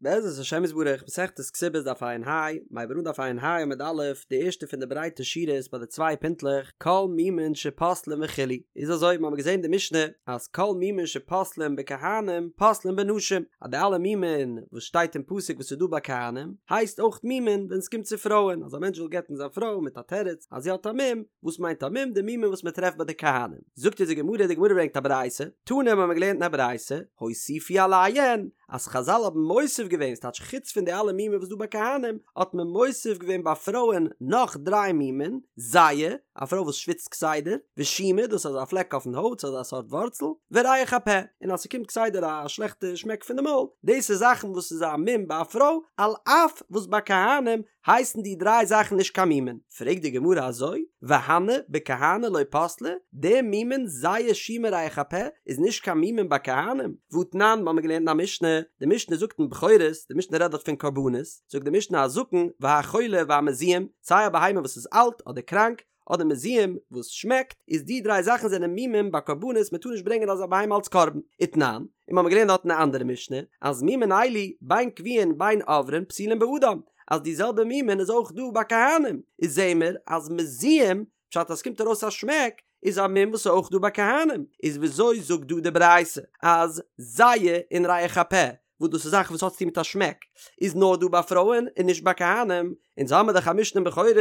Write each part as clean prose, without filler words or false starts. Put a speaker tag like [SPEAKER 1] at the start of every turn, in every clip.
[SPEAKER 1] בעזרת השם יתברך, מסכת כתובות דף ע"ה, מ'הייבט אן דף ע"ה עמוד א', די ערשטע פון די ברייטע שורות ביי די צוויי פינטלעך, כל מומין שפוסלין וכו', איז אזוי, מ'האמיר געזען די משנה אז כל מומין שפוסלין בכהנים פוסלין בנשים, אז די אלע מומין וואס שטייט אין פסוק וואס איז דא ביי כהנים, הייסט אויך מומין ווען עס קומט צו פרויען, אז א מענטש וויל גט'ן זיין פרוי מיט א תירוץ אז זי האט א מום, וואס מיינט א מום? די מומין וואס מ'טרעפט ביי די כהנים. זאגט אונז די גמרא, די גמרא ברענגט א ברייתא, תנא האמיר געלערנט אין א ברייתא, הוסיפו עליהן, אז חזל האבן מוסיף געווען, ס'טייטש חוץ פון די אלע מומין וואס דא ביי כהנים, האט מען מוסיף געווען ביי פרויען נאך דריי מומין, זיעה, א פרוי וואס שוויצט כסדר, ושומא, דאס איז אזא פלעק אויפן הויט, ס'איז אזא סארט ווארצל, וריח הפה, און אז ס'קומט כסדר א שלעכטע שמעק פון די מויל, דאס איז זאכן וואס איז א מום ביי א פרוי, על אף וואס ביי כהנים הייסן די דריי זאכן נישט קיין מומין? פרעגט די גמרא אזוי, והני בכהני לא פסלי, די מומין זיעה שומא ריח הפה איז נישט קיין מומין ביי כהנים? והתנן, מ'האמיר געלערנט אין א משנה, די משנה זאגט אין בכורות, די משנה רעדט דארט פון קרבנות, זאגט די משנה הזקן והחולה והמזוהם, סיי א בהמה וואס איז אלט אדער קראנק, אדער מזוהם וואס שמעקט, איז די דריי זאכן זענען מומים ביי קרבנות, מען טאר נישט ברענגען אזא בהמה אלס קרבן. ותנן, און מ'האמיר געלערנט דארט אין א אנדערע משנה, אז מומין אלו בין קבועין בין עוברין פסולין באדם, אז די זעלבע מומין איז אויך דא ביי כהנים, איז זעהן מיר אז מזוהם, פשט אז ס'קומט ארויס א שמעק, איז א מום וואס איז אויך דא ביי כהנים, איז וויאזוי זאגט דא די ברייתא אז זיעה און ריח הפה וואס דאס איז זאכן וואס האט צוטון מיט א שמעק, איז נאר דא ביי פרויען און נישט ביי כהנים, אונז האמיר דאך א משנה אין בכורות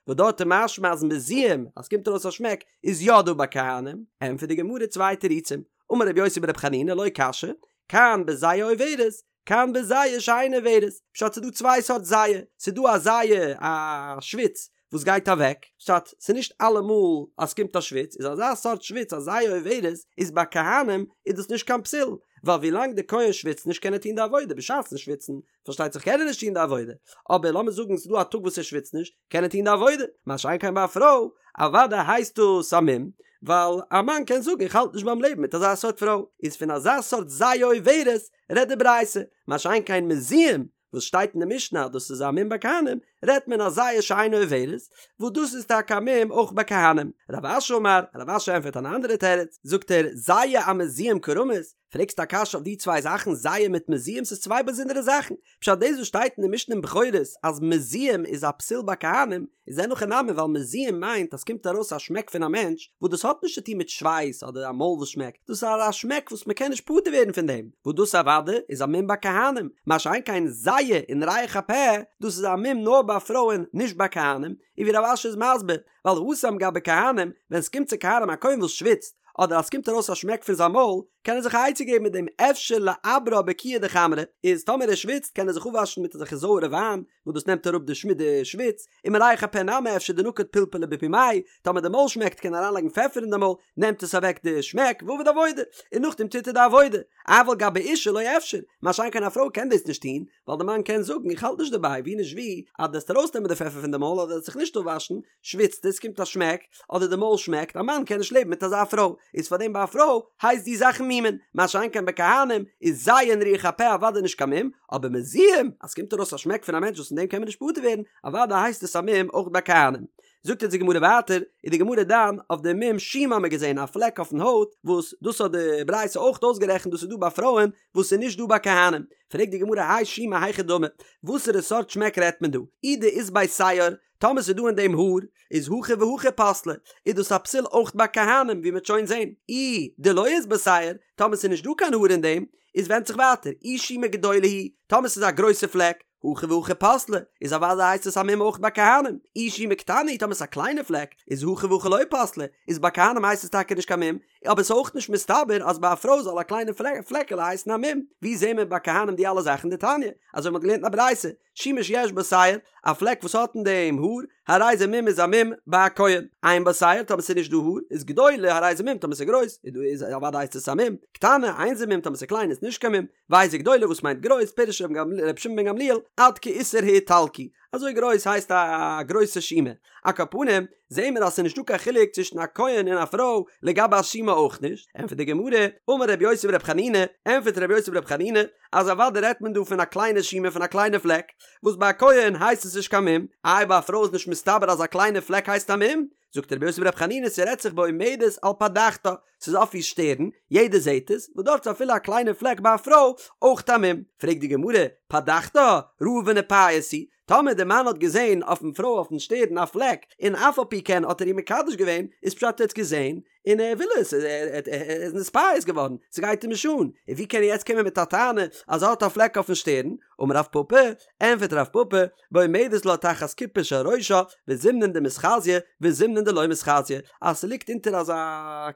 [SPEAKER 1] וואס דארט איז משמע אז מזוהם, אז ס'קומט ארויס א שמעק, איז יא דא ביי כהנים, ענטפערט די גמרא צוויי תירוצים, אמר רבי יוסי ברבי חנינא לא קשיא, כאן בזיעה עוברת, כאן בזיעה שאינה עוברת, פשט ס'דא צוויי סארט זיעה, ס'דא א זיעה א שוויץ וואס גייט אוועק, פשט ס'איז נישט אלעמאל אז ס'קומט א שוויץ, איז אזא סארט שוויץ א זיעה עוברת איז ביי כהנים איז דאס נישט קיין פסול, ווייל ווילאנג די כהן שוויצט נישט קען ער טון די עבודה, בשעת'ן שוויצן פארשטייט זיך קען ער נישט טון די עבודה, אבער לאמיר זאגן ס'איז דא א טאג וואס ער שוויצט נישט, קען ער טון די עבודה, מה שאין כן ביי א פרוי, אוודאי הייסט דאס א מום, ווייל א מאן קען זאגן איך האלט נישט ביים לעבן מיט אזא סארט פרוי, איז פון אזא סארט זיעה עוברת רעדט די ברייתא, מה שאין כן מזוהם וואס שטייט אין די משנה אז דאס איז א מום ביי כהנים, רעדט מען א זיעה שאינה עוברת, וואס דאס איז טאקע א מום אויך ביי כהנים. רב אשי אמר, רב אשי ענטפערט אן אנדערע תירוץ, זאגט ער, זיעה אמזוהם קרמית, פרעגסט א קשיא אויף די צוויי זאכן זיעה מיט מזוהם ס'איז צוויי באזונדערע זאכן, פשט דאס וואס שטייט אין די משנה אין בכורות אז מזוהם איז א פסול ביי כהנים, איז אין הכי נמי ווייל מזוהם מיינט אז ס'קומט ארויס א שמעק פון א מענטש וואס דאס האט נישט צו טון מיט שווייס אדער א מויל וואס שמעקט, דאס איז א שמעק וואס מ'קען נישט פטור ווערן פון דעם, וואס דאס אוודאי איז א מום ביי כהנים, מה שאין כן זיעה און ריח הפה, דאס איז א מום נאר ביי פרויען נישט ביי כהנים, און ווי רב אשי איז מסביר, ווייל התם גבי כהנים, ווען ס'קומט צו כהנים א כהן וואס שוויצט, אדער אז ס'קומט ארויס א שמעק פון זיין מויל, קען ער זיך א עצה געבן מיט דעם אפשר לעברה בקיוהא דחמרא, איז טאמער ער שוויצט קען ער זיך אפוואשן מיט אזעלכע זויערע וויין, וואס דאס נעמט אראפ די שמוץ די שוויץ, ומריח הפה נמי אפשר דנקיט פילפלא בפומיה, טאמער די מויל שמעקט קען ער אריינלייגן פעפער אין די מויל, נעמט עס אוועק די שמעק, ועביד עבודה, און נאכדעם טוט ער די עבודה, אבל גבי אשה לא אפשר, מה שאין כן א פרוי קען דאס נישט טון, ווייל די מאן קען זאגן איך האלט נישט דערביי, ווי נישט ווי, אז דו וועסט ארויסנעמען די פעפער פון די מויל אדער זיך נישט אפוואשן, שוויצט עס, קומט א שמעק, אדער די מויל שמעקט, א מאן קען נישט לעבן מיט אזא פרוי, איז פארדעם ביי א פרוי הייסט די זאכן מומין, מה שאין כן ביי כהנים איז זיעה און ריח הפה אוודאי נישט קיין מום, אבער מזוהם, אז ס'קומט ארויס א שמעק פון א מענטש וואס פון דעם קען מען נישט פטור ווערן, אוודאי הייסט עס א מום אויך ביי כהנים. זאגט אונז די גמרא ווייטער, איז די גמרא דן אויף די מום שומא האמיר געזען א פלעק אויפן הויט, וואס דאס האט די ברייתא אויך אויסגערעכנט דאס איז דא ביי פרויען וואס איז נישט דא ביי כהנים, פרעגט די גמרא האי שומא היכי דמי, וואסערע סארט שמעק רעדט מען דא, אי דאית ביה שער, טאמער ס'איז דא אין דעם האר, איז הכא והכא פסלי, איז דאס א פסול אויך ביי כהנים ווי מ'וועט שוין זען. אי דלא אית ביה שער, טאמער ס'איז נישט דא קיין האר אין דעם, איז ווענדט זיך ווייטער, אי שומא גדולה היא, טאמער ס'איז א גרויסע פלעק, הכא והכא פסלי, איז אוודאי הייסט עס א מום אויך ביי כהנים. אי שומא קטנה היא, טאמער ס'איז א קליינע פלעק, איז הכא והכא לא פסלי, איז ביי כהנים הייסט עס טאקע נישט קיין מום, אבער ס'איז אויך נישט מסתבר אז ביי א פרוי זאל א קליינע פלעקעלע הייסן א מום. ווי זעהן מיר ביי כהנים די אלע זאכן? דתניא, אזוי מ'האט געלערנט אין א ברייתא, שומא שיש בה שער, א פלעק וואס האט אין דעם האר, הרי זה מום איז א מום ביי א כהן. אין בה שער, טאמער ס'איז נישט דא האר, איז גדולה, הרי זה מום, טאמער ס'איז גרויס, איז דא איז אוודאי הייסט עס א מום. קטנה, אין זה מום, טאמער ס'איז קליין איז נישט קיין מום. ואיזו גדולה וואס מיינט גרויס, פירש רבי שמעון בן גמליאל, עד כאיסר האיטלקי, אזוי גרויס הייסט א גרויסע שומא. על כל פנים, זעהן מיר אז ס'איז נישטא קיין חילוק צווישן א כהן און א פרוי לגבי א שומא אויך נישט. ענטפערט די גמרא, אמר רבי יוסי ברבי חנינא, ענטפערט רבי יוסי ברבי חנינא, אז אוודאי רעדט מען דא פון א קליינע שומא פון א קליינע פלעק, וואס ביי א כהן הייסט עס נישט קיין מום, איי ביי א פרוי איז נישט מסתבר אז א קליינע פלעק הייסט א מום? זאגט רבי יוסי ברבי חנינא ס'רעדט זיך בעומדת על פדחתה, ס'איז אויף איר שטערן, יעדער זעט עס, וואס דארט איז אפילו א קליינע פלעק ביי א פרוי אויך א מום. פרעגט די גמרא, פדחתה, ראה וניפייס הוא, טאמער די מאן האט געזען אויפן פרוי אויפן שטערן א פלעק, און אף על פי כן האט ער איר מקדש געווען, איז פשט ער האט עס געזען, און ער וויל עס, ער איז נתפייס געווארן, ס'גייט אים נישט אן, און ווי קען ער יעצט קומען מיט א טענה אז ער האט א פלעק אויפן שטערן? אמר רב פפא, ענפערט רב פפא, בעומדת לה תחת כיפה של ראשה, וזימנין דמיתחזיא, וזימנין דלא מיתחזיא, אז ס'ליגט אונטער אזא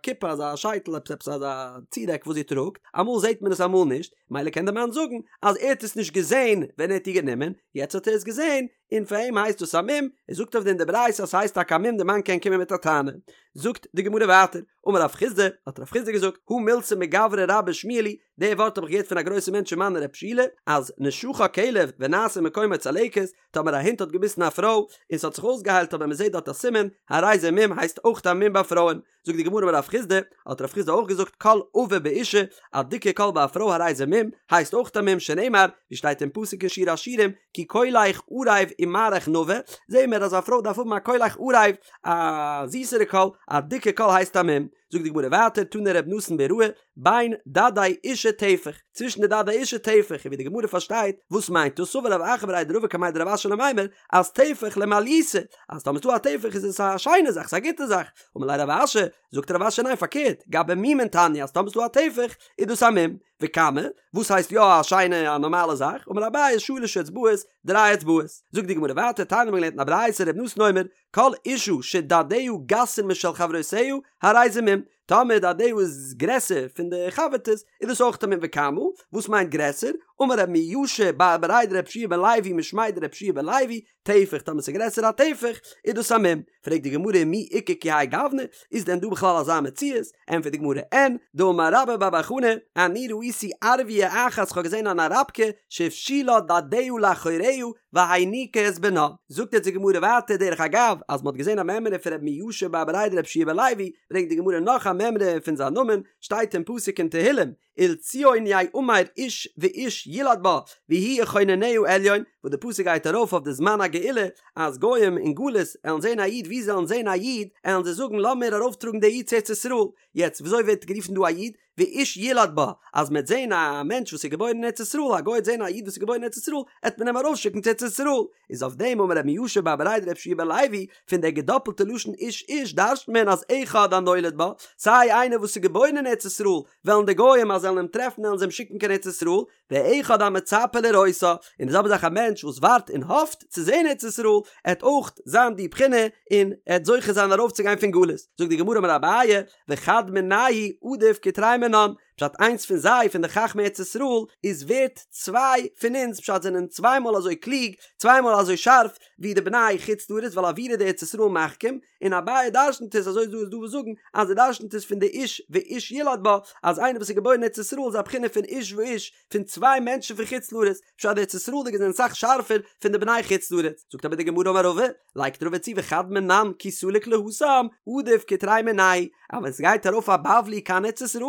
[SPEAKER 1] כיפה, אזא שייטל, עפעס עפעס אזא צודעק וואס זי טראגט, אמאל זעט מען עס אמאל נישט, מילא קען דער מאן זאגן אז ער האט עס נישט געזען ווען ער האט איר גענומען, יעצט האט ער עס געזען, און פאר אים הייסט דאס א מום, ער זאגט אויף דעם די ברייתא אז ס'הייסט טאקע א מום די מאן קען קומען מיט א טענה. זאגט די גמרא ווייטער, אמר רב חסדא, האט רב חסדא געזאגט, הא מילתא מגברא רבה שמיע לי, די ווארט האב איך געהערט פון א גרויסע מענטש ומנו רב שילא, אז נשכה כלב ונעשה מקומו צלקת, טאמער א הונט האט געביסן א פרוי און ס'האט זיך אויסגעהיילט אבער מ'זעט דארט א סימן, הרי זה מום הייסט אויך א מום ביי פרויען. זאגט די גמרא אמר רב חסדא, האט רב חסדא אויך געזאגט קול עבה באשה, א דיקע קול ביי א פרוי הרי זה מום, הייסט אויך א מום שנאמר, ווי שטייט אין פסוק אין שיר השירים, כי קולך ערב ומראיך נאוה, זעהן מיר אז א פרוי דארף האבן א קולך ערב, א זיסערע קול, א דיקע קול הייסט א מום. זאגט די גמרא ווייטער תני ר' נתן ביראי, בין דדי אשה טפח, צווישן די דדי אשה טפח, און ווי די גמרא פארשטייט, וואס מיינט דאס סבר רב אחא בריה דרבא קמיה דרב אשי למימר, אז טפח למעליותא, אז טאמער ס'דא א טפח איז עס א שיינע זאך, ס'איז א גוטע זאך, אמר ליה רב אשי, זאגט רב אשי ניין פארקערט, גבי מומין תניא אז טאמער ס'דא א טפח איז דאס א מום, וכמה, וואס הייסט יא א שיינע א נארמאלע זאך, אמר אביי שלש אצבעות, דריי אצבעות, זאגט די גמרא ווייטער תניא מ'האט געלערנט אין א ברייתא ר' נתן אומר, כל אשה שדדיה גסין משל חברותיה, הרי זה מום, טאמער דדיה איז גרעסער פון די חבר'טעס איז דאס אויך א מום וכמה, וואס מיינט גרעסער, אמר רב מיאשא בר בריה דרב יהושע בן לוי משמיה דרב יהושע בן לוי, טפח טאמער ס'איז גרעסער א טפח איז דאס א מום, פרעגט די גמרא מי איכא כי האי גוונא, איז דען דא בכלל אזא מציאות, ענטפערט די גמרא אין, דאמר רבה בר בר חנה, אני ראיתי ערביה אחת כ'האב געזען אן אראבקע שהפשילה דדיה לאחוריה והיניקה את בנה, זאגט יעצט די גמרא ווייטער דרך אגב אז מ'האט געזען א מימרא פון רב מיאשא בר בריה דרב יהושע בן לוי, ברענגט די גמרא נאך א מימרא פון זיין נאמען, שטייט אין פסוק אין תהילים, ולציון יאמר איש ואיש ילד בה והוא יכוננה עליון, וואס די פסוק גייט ארויף אויף די זמן הגאולה, אז גוים אין גלות עלן זען א איד ווי זיי עלן זען א איד עלן זיי זאגן לאמיר ארויפטראגן די איד צו ארץ ישראל, יעצט וויאזוי ווערט גערופן דא א איד? ואיש ילד בה, אז מען וועט זען א מענטש וואס איז געבוירן אין ארץ ישראל, א גוי וועט זען א איד וואס איז געבוירן אין ארץ ישראל, עט מען אים ארויפשיקן צו ארץ ישראל, איז אויף דעם אמר רב מיאשא בר בריה דרב יהושע בן לוי, פון דער געדאפלטע לשון איש איש דרש'נט מען אז אחד הנולד בה, סיי איינער וואס איז געבוירן אין ארץ ישראל, וועלן די גוים אז זיי וועלן אים טרעפן וועלן זיי אים שיקן קיין ארץ ישראל, ואחד המצפה לראותה, און די זעלבע זאך א מענטש וואס ווארט און האפט צו זען ארץ ישראל, עט אויך זיין די בחינה און עט זוכה זיין ארויפצוגיין פון גלות. זאגט די גמרא אמר אביי, וחד מינייהו עדיף כתרי מינן, פשט איינס פון זיי פון די חכמי ארץ ישראל איז ווערט צוויי פון אונז פשט זענען צוויי מאל אזוי קלוג צוויי מאל אזוי שארף ווי די בני חוץ לארץ ווייל אוירא דארץ ישראל מחכים און אביי דרשנט עס אזוי איז דא איז דא וואס זאגן אז ער דרשנט עס פון די איש ואיש ילד בה אז איינער וואס איז געבוירן אין ארץ ישראל איז א בחינה פון איש ואיש פון צוויי מענטשן פון חוץ לארץ פשט די ארץ ישראל'דיגע זענען אסאך שארפער פון די בני חוץ לארץ זאגט אבער די גמרא אמר רבא לייגט רבא צו וחד מינן כי סליק להתם עדיף כתרי מינייהו אז ווען סגייט ארויף א בבלי קיין ארץ ישראל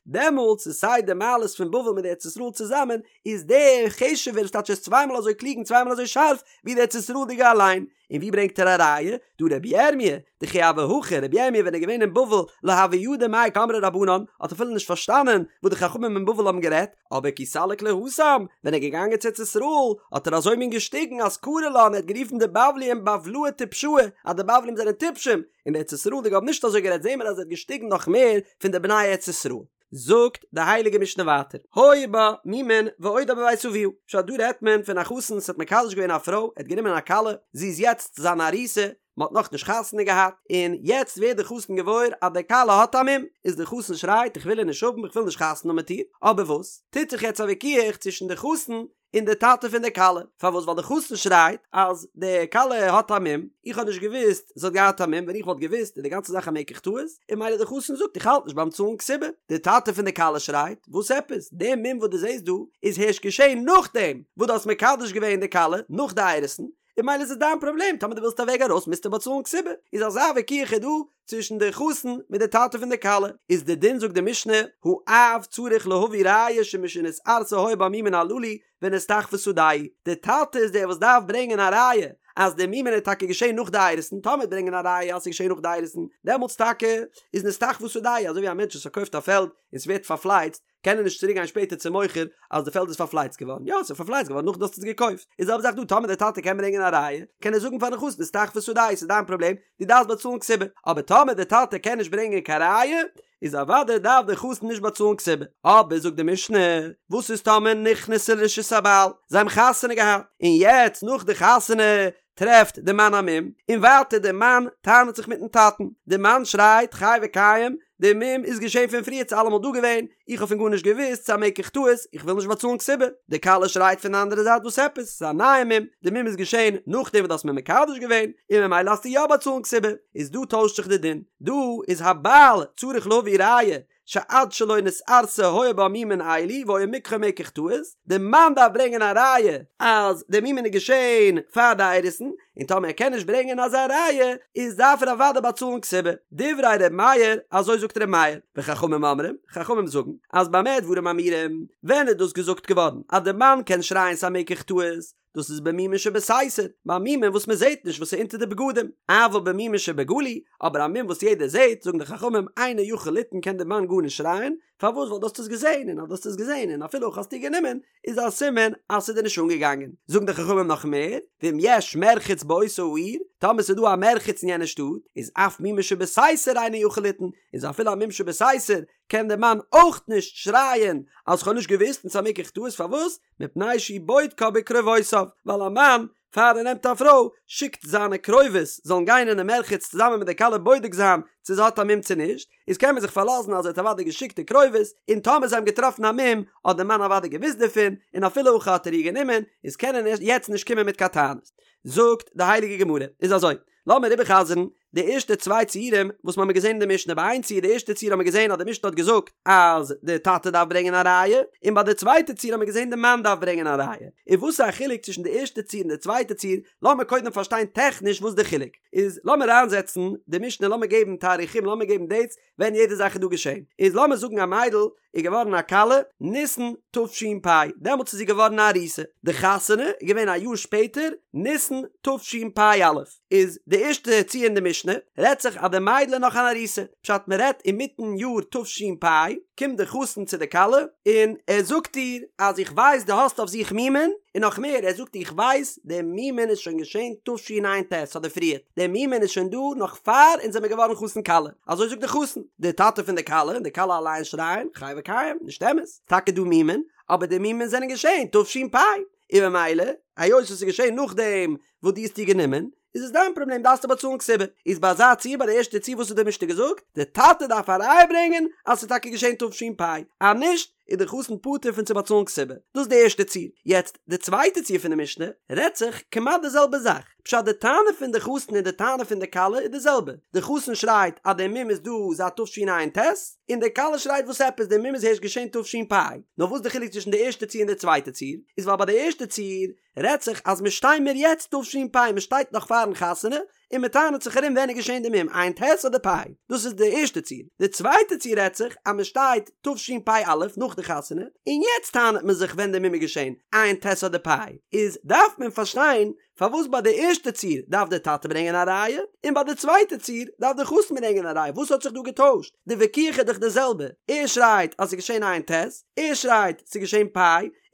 [SPEAKER 1] דעמאלטס איז סיי די מעלות פון בבל מיט די ארץ ישראל צוזאמען איז דער חשוב'ער ס'טייטש ער איז צוויי מאל אזוי קלוג און צוויי מאל אזוי שארף ווי די ארץ ישראל'דיגע אליין און ווי ברענגט ער א ראיה? דהא רבי ירמי', דכי הוה הכא, רבי ירמי' ווען ער איז געווען אין בבל, לא הוה ידע מאי קאמרי רבנן, האט אפילו נישט פארשטאנען וואס די חכמים אין בבל האבן גערעדט, אבער כי סליק להתם, ווען ער איז געגאנגען צו ארץ ישראל, האט ער אזוי מין געשטיגן אז קרי לן, ער האט גערופן די בבליים בבלאי טפשאי, אז די בבליים זענען טיפשים, און די ארץ ישראל'דיגע האבן נישט אזוי גערעדט זעהן מיר אז ער האט געשטיגן נאך מער פון די בני ארץ ישראל. זאגט די הייליגע משנה ווייטער, היו בה מומין ועודה בבית אביה, פשט דא רעדט מען פון א חתן וואס האט מקדש געווען א פרוי, ער האט גענומען א כלה, זי איז יעצט זיין ארוסה, מען האט נאכנישט חתונה געהאט, און יעצט ווערט די חתן געוואויר אז די כלה האט א מום, איז די חתן שרייט איך וויל איר נישט האבן, איך וויל נישט חתונה האבן מיט איר, אבער וואס טוט זיך יעצט א וויכוח צווישן די חתן און די טאטע פון די כלה, פארוואס ווייל די חתן שרייט אז די כלה האט א מום, איך האב נישט געוואוסט זי האט געהאט א מום, ווען איך וואלט געוואוסט איז די גאנצע זאך א מקח טעות, און ממילא די חתן זאגט איך האלט נישט ביים צאלן כתובה, די טאטע פון די כלה שרייט וואס עפעס, די מום וואס דו זעסט דא איז הערשט געשען נאכדעם וואס דו האסט מקדש געווען די כלה, נאך די אירוסין, און ממילא איז עס דיין פראבלעם, טאמער דו ווילסט א וועג ארויס מוזטו באצאלן כתובה, איז אזא וויכוח איז דא צווישן די חתן מיט די טאטע פון די כלה, איז די דין זאגט די משנה, האב צריך להביא ראיה שמשנתארסה היו בה המומין הללו ונסתחפה שדהו, די טאטע איז דער וואס דארף ברענגען א ראיה. אז די מומין איז טאקע געשען נאך די אירוסין, טאמער וועט ברענגען א ראיה אז ס'איז געשען נאך די אירוסין, דעמאלטס טאקע איז נסתחפה שדהו, אזוי ווי א מענטש וואס פארקויפט א פעלד און ס'ווערט פארפלייצט, קען ער נישט צוריק גיין שפעטער צום מוכר אז די פעלד איז פארפלייצט געווארן, יא ס'איז פארפלייצט געווארן נאך דו האסט עס געקויפט, איז די זעלבע זאך דא, טאמער דער טאטע קען ברענגען א ראיה, קען ער זאגן פארן חתן נסתחפה שדהו, ס'איז דיין פראבלעם, דו דארפסט באצאלן כתובה, אבער טאמער דער טאטע קען נישט ברענגען קיין ראיה, איז אוודאי דארף דער חתן נישט באצאלן כתובה. אבער זאגט די משנה, וואס איז טאמער נכנסה לרשות הבעל, זיי האבן חתונה געהאט, און יעצט נאך די חתונה טרעפט די מאן א מום, און ווייטער די מאן טענה'ט זיך מיטן טאטן, די מאן שרייט חי וקיים, די מום איז געשען פון פריער ס'איז אלעמאל דא געווען, איך האב פון גארנישט געוואוסט, ס'איז א מקח טעות, איך וויל נישט באצאלן כתובה. די כלה שרייט פון די אנדערע זייט וואס עפעס, ס'איז א נייע מום, די מום איז געשען נאכדעם וואס דו האסט מיר מקדש געווען, און ממילא דארפסטו יא באצאלן כתובה. איז דא טוישט זיך די דין, דא איז הבעל צריך להביא ראיה שעד שלא נתארסה היו בה מומין אלו והיה מקחו מקח טעות, די מאן דארף ברענגען א ראיה אז די מומין איז געשען פאר די אירוסין, און טאמער ער קען נישט ברענגען אזא ראיה איז דארף ער אוודאי באצאלן כתובה. דברי ר' מאיר, אזוי זאגט ר' מאיר, וחכמים אומרים, חכמים זאגן, אז במה דברים אמורים, ווען איז דאס געזאגט געווארן אז די מאן קען שרייען ס'א מקח טעות, דאס איז במומין שבסתר, ביי מומין וואס מען זעט נישט וואס איז אונטער די בגדים, אבל במומין שבגלוי, אבער א מום וואס יעדער זעט, זאגן די חכמים, אינו יכול לטעון קען די מאן גארנישט שרייען, פארוואס ווייל דו האסט עס געזען און אז דו האסט עס געזען און אפילו הכי האסטו גענומען, איז א סימן אז ס'איז דיר נישט אנגעגאנגען. זאגן די חכמים נאך מער, ואם יש מרחץ באותה העיר, טאמער ס'איז דא א מרחץ אין יענע שטאט, איז אף מומין שבסתר אינו יכול לטעון, איז אפילו א מום שבסתר קען דער מאן אויך נישט שרייען אז כ'האב נישט געוואוסט און ס'איז א מקח טעות, פארוואס? מפני שהוא בודקה בקרובותיו, ווייל א מאן פאר ער נעמט א פרוי שיקט זיינע קרובות זאלן גיין אינעם מרחץ צוזאמען מיט די כלה בודק זיין צו זי האט א מום צו נישט, איז קען מען זיך פארלאזן אז ער האט אוודאי געשיקט די קרובות, און טאמער זיי האבן געטראפן א מום האט דער מאן אוודאי געוואוסט דערפון, און אפילו הכי האט ער איר גענומען, איז קען ער יעצט נישט קומען מיט קיין טענות. זאגט די הייליגע גמרא, איז אזוי, לאמיר איבערחזר'ן די ערשטע צוויי ציורים וואס מ'האמיר געזען אין די משנה, ביי איין ציור די ערשטע ציור האמיר געזען אז די משנה האט געזאגט אז די טאטע דארף ברענגען א ראיה, און ביי די צווייטע ציור האמיר געזען די מאן דארף ברענגען א ראיה, און וואס איז א חילוק צווישן די ערשטע ציור און די צווייטע ציור, לאמיר קודם פארשטיין טעכניש וואס די חילוק איז, לאמיר אריינזעצן די משנה לאמיר געבן תאריכים לאמיר געבן דעיטס ווען יעדע זאך איז דא געשען, איז לאמיר זאגן א מיידל איז געווארן א כלה ניסן תש"פ, דעמאלטס איז זי געווארן א ארוסה, די חתונה איז געווען א יאר שפעטער ניסן תשפ"א, איז די ערשטע ציור אין די משנה רעדט זיך אז די מיידל איז נאך אן ארוסה, פשט מען רעדט אינמיטן יאר תש"פ, קומט די חתן צו די כלה און ער זאגט איר אז איך ווייס דו האסט אויף זיך מומין, און נאך מער ער זאגט איך ווייס די מומין איז שוין געשען תשע"ט אדער פריער, די מומין איז שוין דא נאך פאר אונז זעמיר געווארן חתן כלה, אזוי זאגט די חתן, די טאטע פון די כלה און די כלה אליין שרייען חי וקיים נישט אמת, טאקע דא מומין, אבער די מומין זענען געשען תש"פ, און ממילא היות עס איז געשען נאכדעם וואס דו האסט איר גענומען, איז עס דיין פראבלעם דארפסטו באצאלן כתובה, איז ביי אזא ציור ביי די ערשטע ציור וואס האט די משנה געזאגט, די טאטע דארף א ראיה ברענגען אז ס'איז טאקע געשען תש"פ, אז נישט איז די חתן פטור פון צו באצאלן כתובה, דאס איז די ערשטע ציור, יעצט די צווייטע ציור פון די משנה רעדט זיך כמעט די זעלבע זאך, פשט די טענה פון די חתן און די טענה פון די כלה איז די זעלבע, די חתן שרייט אז די מום איז דא זייט תשע"ט, און די כלה שרייט וואס עפעס די מום איז הערשט געשען תש"פ, נאר וואס די חילוק צווישן די ערשטע ציור און די צווייטע ציור, איז ווייל ביי די ערשטע ציור רעדט זיך אז מ'שטיי מיר יעצט תש"פ, מ'שטייט נאך פארן חתונה, און מ'טענה'ט זיך ארום ווען איז געשען די מום, ע"ט אדער פ'? דאס איז די ערשטע ציור. די צווייטע ציור רעדט זיך אז מ'שטייט תשפ"א נאך די חתונה, און יעצט טענה'ט מען זיך ווען די מום איז געשען, ע"ט אדער פ'? איז דארף מען פארשטיין פארוואס ביי די ערשטע ציור דארף די טאטע ברענגען א ראיה, און ביי די צווייטע ציור דארף די חתן ברענגען א ראיה, וואס האט זיך דא געטוישט? די וויכוח איז דאך די זעלבע, ער שרייט אז ס'איז געשען ע"ט, ער שרייט ס'איז געשען פ',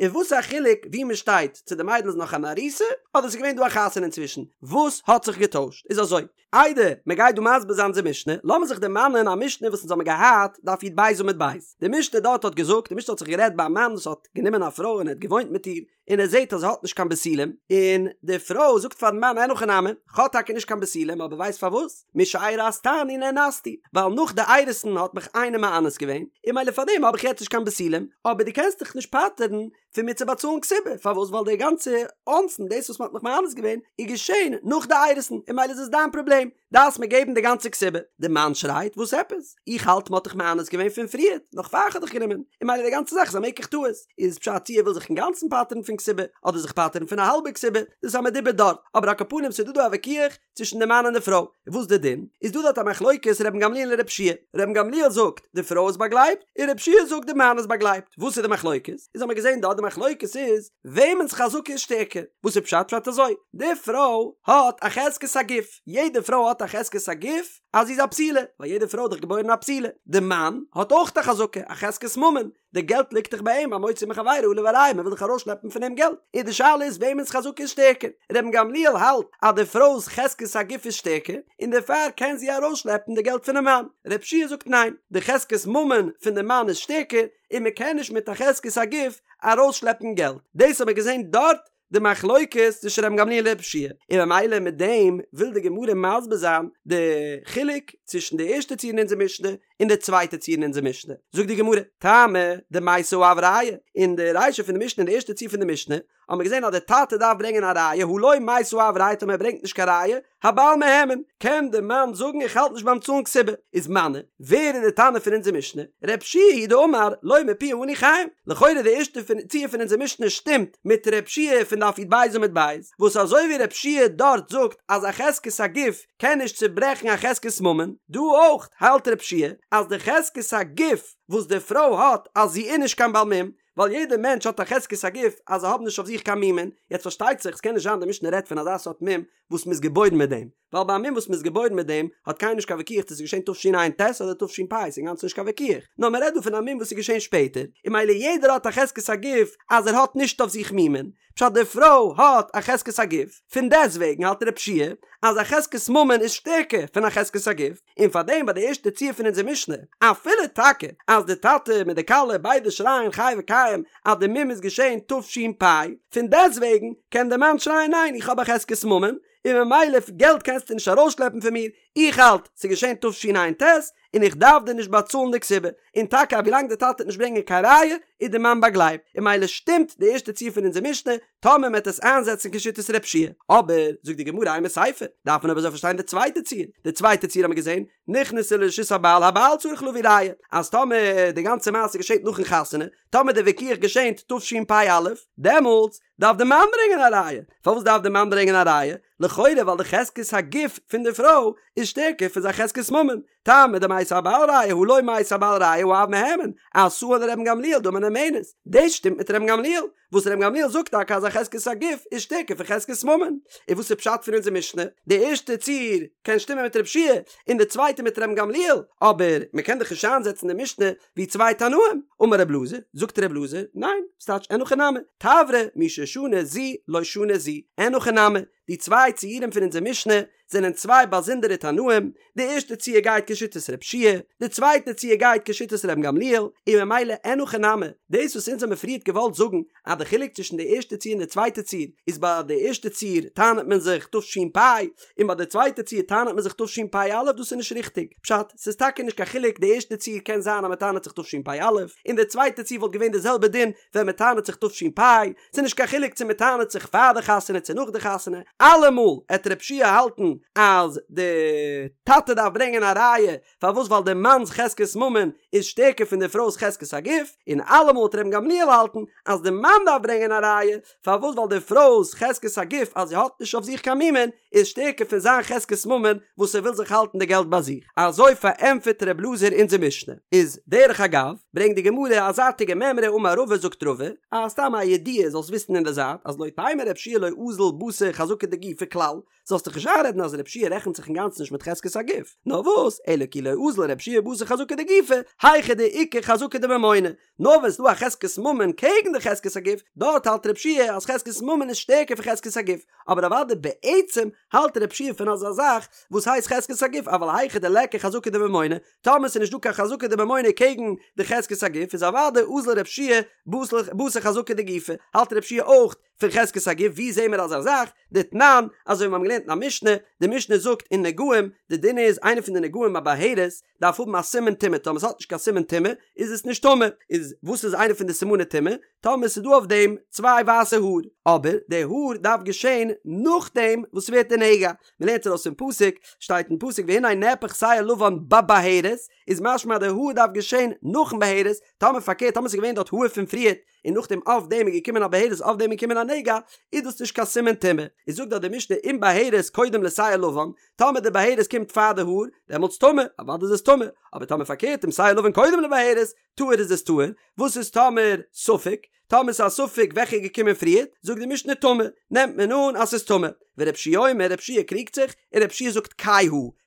[SPEAKER 1] און וואס איז א חילוק ווי מען שטייט, צו די מיידל איז נאך אן ארוסה, אדער ס'איז געווען דא א חתונה אינצווישן, וואס האט זיך געטוישט? איז אזוי, איידער מען גייט דא מסביר זיין אונזער משנה, לאמיר זיך דערמאנען א משנה וואס אונז האבן געהאט, דף י"ב עמוד ב', די משנה דארט האט געזאגט, די משנה האט זיך גערעדט ביי א מאן וואס האט גענומען א פרוי און ער האט געוואוינט מיט איר, און ער זעט אז זי האט נישט קיין בתולים, און די פרוי זאגט פארן מאן אין הכי נמי, כ'האב טאקע נישט קיין בתולים אבער ווייסט פארוואס? משארסתני נאנסתי, ווייל נאך די אירוסין האט מיך איינער מאנס געווען, און מילא פארדעם האב איך יעצט נישט קיין בתולים, אבער דו קענסט דיך נישט פטר'ן פון מיר צו באצאלן כתובה, פארוואס? ווייל די גאנצע אונסין, דאס וואס מ'האט מיך מאנס געווען, איז געשען נאך די אירוסין, און מילא איז עס דיין פראבלעם, דארפסט מיר געבן די גאנצע כתובה. די מאן שרייט, וואס עפעס? איך האלט מ'האט דיך מאנס געווען פון פריערט, נאך פאר כ'האב דיך גענומען, און מילא די גאנצע זאך איז א מקח טעות. איז פשט צו ער וויל זיך אינגאנצן פטר'ן פון כתובה, אדער זיך פטר'ן פון א האלבע כתובה, דאס איז א מדובר דארט, אבער על כל פנים ס'איז דא דא א וויכוח צווישן די מאן און די פרוי, און וואס די דין? איז דא דארט א מחלוקת רבן גמליאל און רב שיע, רבן גמליאל זאגט די פרוי איז באגלייבט, און רב שיע זאגט די מאן איז באגלייבט, וואס איז די מחלוקת? איז האמיר געזען דארט די. מחלוקת איז וועמענס חזקה איז שטערקער, וואס איז פשט? פשט אזוי, די פרוי האט א חזקת הגוף, יעדע פרוי האט א חזקת הגוף אז זי איז א בתולה, ווייל יעדע פרוי איז דאך געבוירן א בתולה, די מאן האט אויך א חזקה, א חזקת ממון, די געלט ליגט דאך ביי אים, המוציא מחבירו עליו הראיה, מען וויל דאך ארויסשלעפן פון אים געלט, און די שאלה איז וועמענס חזקה איז שטערקער, רבן גמליאל האלט אז די פרוי'ס חזקת הגוף איז שטערקער, און דערפאר קען זי ארויסשלעפן די געלט פונעם מאן, רבי יהושע זאגט ניין, די חזקת ממון פון די מאן איז שטערקער, און מען קען נישט מיט א חזקת הגוף ארויסשלעפן געלט, דאס האט מען געזען דארט די מחלוקת צווישן רבן גמליאל און רבי יהושע, און ממילא מיט דעם וויל די גמרא מסביר זיין די חילוק צווישן די ערשטע ציור אין אונזער משנה און די צווייטע ציור אין אונזער משנה, זאגט די גמרא, טעמא דמייתי האב ראיה, אין די רישא פון די משנה אין די ערשטע ציור פון די משנה האט מען געזען אז די טאטע דארף ברענגען א ראיה הא לא מייתי האב ראיה טאמער ער ברענגט נישט קיין ראיה הבעל מהימן, קען די מאן זאגן איך האלט נישט ביים צאלן כתובה, איז מני, ווער איז די תנא פון אונזער משנה? רבי יהושע היא דאמר לא מפיה אנו חיים, לכאורה די ערשטע ציור פון אונזער משנה שטימט מיט רבי יהושע פון דף י"ב עמוד ב', וואס אזוי ווי רבי יהושע דארט זאגט אז א חזקת הגוף קען נישט צוברעכן א חזקת ממון, דא אויך האלט רבי יהושע אז די חזקת הגוף וואס די פרוי האט אז זי איז נישט קיין בעל מום, ווייל יעדער מענטש האט א חזקת הגוף אז זיי האבן נישט אויף זיך קיין מומין, יעצט פארשטייט זיך ס'קען נישט זיין די משנה רעדט פון אזא סארט מום וואס מ'איז געבוירן מיט דעם, ווייל ביי א מום וואס מ'איז געבוירן מיט דעם האט קיינער נישט קיין וויכוח צו ס'איז געשען תשע"ט אדער תש"פ, ס'איז אינגאנצן נישט קיין וויכוח, נאר מ'רעדט דא פון א מום וואס איז געשען שפעטער, און ממילא יעדער האט א חזקת הגוף אז ער האט נישט אויף זיך מומין, פשט די פרוי האט א חזקת הגוף, פון דעסטוועגן האלט רבי יהושע אז א חזקת ממון איז שטערקער פון א חזקת הגוף, און פארדעם ביי די ערשטע ציור פון אונזער משנה, אפילו טאקע אז די טאטע מיט די כלה ביידע שרייען חי וקיים אז די מום איז געשען תש"פ, פון דעסטוועגן קען די מאן שרייען ניין איך האב א חזקת ממון, און ממילא געלט קענסטו נישט ארויסשלעפן פון מיר, איך האלט ס'איז געשען תשע"ט און איך דארף דיר נישט באצאלן די כתובה, און טאקע ווילאנג די טאטע וועט נישט ברענגען קיין ראיה איז די מאן באגלייבט, און ממילא שטימט די ערשטע ציור פון אונזער משנה, טאמער מ'עט עס איינזעצן כשיטת רבי יהושע. אבער, זאגט די גמרא אימא סיפא, דארף מען אבער אזוי פארשטיין די צווייטע ציור, די צווייטע ציור האט מען געזען, נכנסה לרשות הבעל הבעל צריך להביא ראיה, אז טאמער די גאנצע מעשה געשענט נאכן חתונה, טאמער די וויכוח געשענט תשפ"א, דעמאלטס דארף די מאן ברענגען א ראיה, פארוואס דארף די מאן ברענגען א ראיה? לכאורה ווייל די חזקת הגוף פון די פרוי איז שטערקער פון זיין חזקת ממון, טעמא דמייתי הבעל ראיה הא לא מייתי הבעל ראיה האב מהימן, אתאן לרבן גמליאל דאמר נאמנת, דאס שטימט מיט רבן גמליאל, וואס רבן גמליאל זאגט טאקע אז א חזקת הגוף איז שטערקער פון חזקת ממון. און וואס איז פשט פון אונזער משנה? די ערשטע ציור קען שטימען מיט רבי יהושע און די צווייטע מיט רבן גמליאל, אבער מען קען דאך נישט איינזעצן די משנה ווי צוויי תנאים. אמר רב אלעזר, זאגט רב אלעזר, ניין, ס'טייטש אין הכי נמי, תברא מי ששנה זו לא שנה זו, אין הכי נמי, די צוויי ציורים פון אונזער משנה זענען צוויי באזונדערע תנאים, די ערשטע ציור גייט כשיטת רבי יהושע, די צווייטע ציור גייט כשיטת רבן גמליאל, און ממילא אין הכי נמי, דאס וואס אונז האמיר פריערט געוואלט זאגן אז די חילוק צווישן די ערשטע ציור און די צווייטע ציור איז ביי די ערשטע ציור טענה'ט מען זיך תש"פ און ביי די צווייטע ציור טענה'ט מען זיך תשפ"א דאס איז נישט ריכטיג, פשט, ס'איז טאקע נישט קיין חילוק די ערשטע ציור קען זיין אז מען טענה'ט זיך תשפ"א און די צווייטע ציור וואלט געווען די זעלבע דין ווען מען טענה'ט זיך תש"פ, ס'איז נישט קיין חילוק צו מען טענה'ט זיך פאר די חתונה צו נאך די חתונה, אלעמאל עט רבי יהושע האלטן אז די טאטע דארף ברענגען א ראיה פארוואס ווייל די מאנ'ס חזקת ממון איז שטערקער פון די פרוי'ס חזקת הגוף, און אלעמאל עט רבן גמליאל האלטן אז די מאן דארף ברענגען א ראיה פארוואס ווייל די פרוי'ס חזקת הגוף אז זי האט נישט אויף זיך קיין מומין איז שטערקער פון זיין חזקת ממון וואס ער וויל זיך האלטן די געלט ביי זיך. אזוי פארענטפערט ר' אלעזר אונזער משנה. איז דרך אגב, ברענגט די גמרא א זייטיגע מימרא אמר רבא זאגט רבא, א סתם א ידיעה זאלסט וויסן אין די זייט אז לא תימא רבי יהושע לא אזיל בתר חזקה דגופא כלל, זאלסט דיך נישט איינרעדן אז רבי יהושע רעכנט זיך אינגאנצן נישט מיט חזקת הגוף, נאר וואס, אלא כי לא אזיל רבי יהושע בתר חזקה דגופא, היכא דאיכא חזקה דממונא, נאר ווען ס'דא א חזקת ממון קעגן די חזקת הגוף, דארט האלט רבי יהושע אז חזקת ממון איז שטערקער פון חזקת הגוף, אבער אוודאי בעצם האלט רבי יהושע פון אזא זאך וואס הייסט חזקת הגוף, אבל היכא דליכא חזקה דממונא, טאמער ס'איז נישט דא קיין חזקה דממונא קעגן די חזקת הגוף איז אוודאי אזיל רבי יהושע בתר חזקה דגופא, האלט רבי יהושע אויך פון חזקת הגוף, ווי זעהן מיר אזא זאך? דתנן, אזוי ווי מיר האבן געלערנט אין א משנה, די משנה זאגט אין נגעים, די דין איז איינע פון די נגעים א בהרת דארף האבן א סימן טומאה, טאמער עס האט נישט קיין סימן טומאה איז עס נישט טמא, איז וואס איז איינע פון די סימני טומאה? טאמער עס איז דא אויף דעם צוויי ווייסע האר, אבער די האר דארף געשען נאכדעם וואס ס'ווערט די נגע, מ'לערנט ארויס פון פסוק, שטייט אין פסוק והנה נהפך שער לבן בבהרת, איז משמע אז די האר דארף געשען נאכן בהרת, טאמער פארקערט טאמער ס'איז געווען דארט האר פון פריערט, און נאכדעם אויף דעם איז געקומען א בהרת אויף דעם איז געקומען א נגע, איז דאס נישט קיין סימן טומאה. איז זאגט דארט די משנה אם בהרת קודם לשער לבן, טאמער די בהרת קומט פאר די האר, דעמאלטס טמא, אוודאי איז עס טמא, אבער טאמער פארקערט אם שער לבן קודם לבהרת, טהור איז עס טהור, וואס איז טאמער ספק? טאמער ס'איז א ספק וועלכע איז געקומען פריערט, זאגט די משנה טמא, נעמט מען אן אז ס'איז טמא. ורבי יהושע אומר, רבי יהושע קריגט זיך, און רבי יהושע זאגט כהה,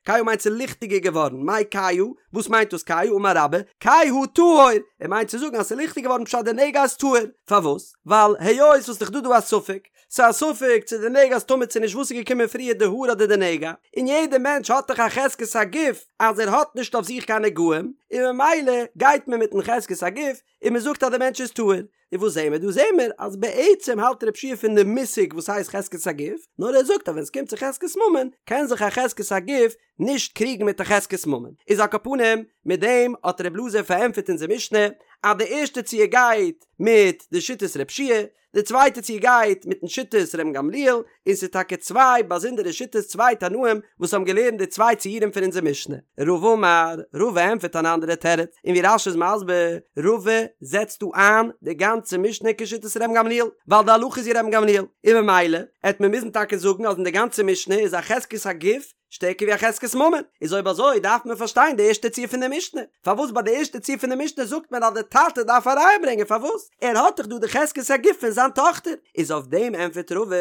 [SPEAKER 1] כהה מיינט ס'איז ליכטיגער געווארן, מאי כהה, וואס מיינט דאס כהה, אמר רבה, כהה טהור, ער מיינט צו זאגן אז ס'איז ליכטיג געווארן פשט די נגע איז טהור, פארוואס? ווייל היות וואס ס'איז דאך דא דא א ספק, ס'איז א ספק צו די נגע איז טמא צו נישט וואס איז געקומען פריער די האר אדער די נגע, און יעדער מענטש האט דאך א חזקת הגוף אז ער האט נישט אויף זיך קיין נגעים, און ממילא גייט מען מיטן חזקת הגוף און מען זאגט אז די מענטש איז טהור. און וואס זעהן מיר דא? זעהן מיר אז בעצם האלט רבי יהושע פון די מושג וואס הייסט חזקת הגוף, נאר ער זאגט אז ווען עס קומט צו חזקת ממון קען זיך א חזקת הגוף נישט קריגן מיט א חזקת ממון. איז על כל פנים, מיט דעם האט רבי אלעזר פארענטפערט אונזער משנה אז די ערשטע ציור גייט מיט די שיטת רבי יהושע, די צווייטע ציור גייט מיטן שיטת רבן גמליאל, און ס'איז טאקע צוויי באזונדערע שיטות צוויי תנאים וואס האבן געלערנט די צוויי ציורים פון אונזער משנה. רבא אמר, רבא ענטפערט אן אנדערע תירוץ, און ווי רש"י איז מסביר, רבא זעצט דא איין די גאנצע משנה כשיטת רבן גמליאל, ווייל די הלכה איז ווי רבן גמליאל, און ממילא העט מען מוזן טאקע זאגן אז אין די גאנצע משנה איז א חזקת הגוף שטערקער ווי א חזקת ממון, איז אויב אזוי דארף מען פארשטיין די ערשטע ציור פון די משנה, פארוואס ביי די ערשטע ציור פון די משנה זאגט מען אז די טאטע דארף א ראיה ברענגען פארוואס ער האט דאך דא די חזקת הגוף פון זיין טאכטער, איז אויף דעם ענטפערט רבא,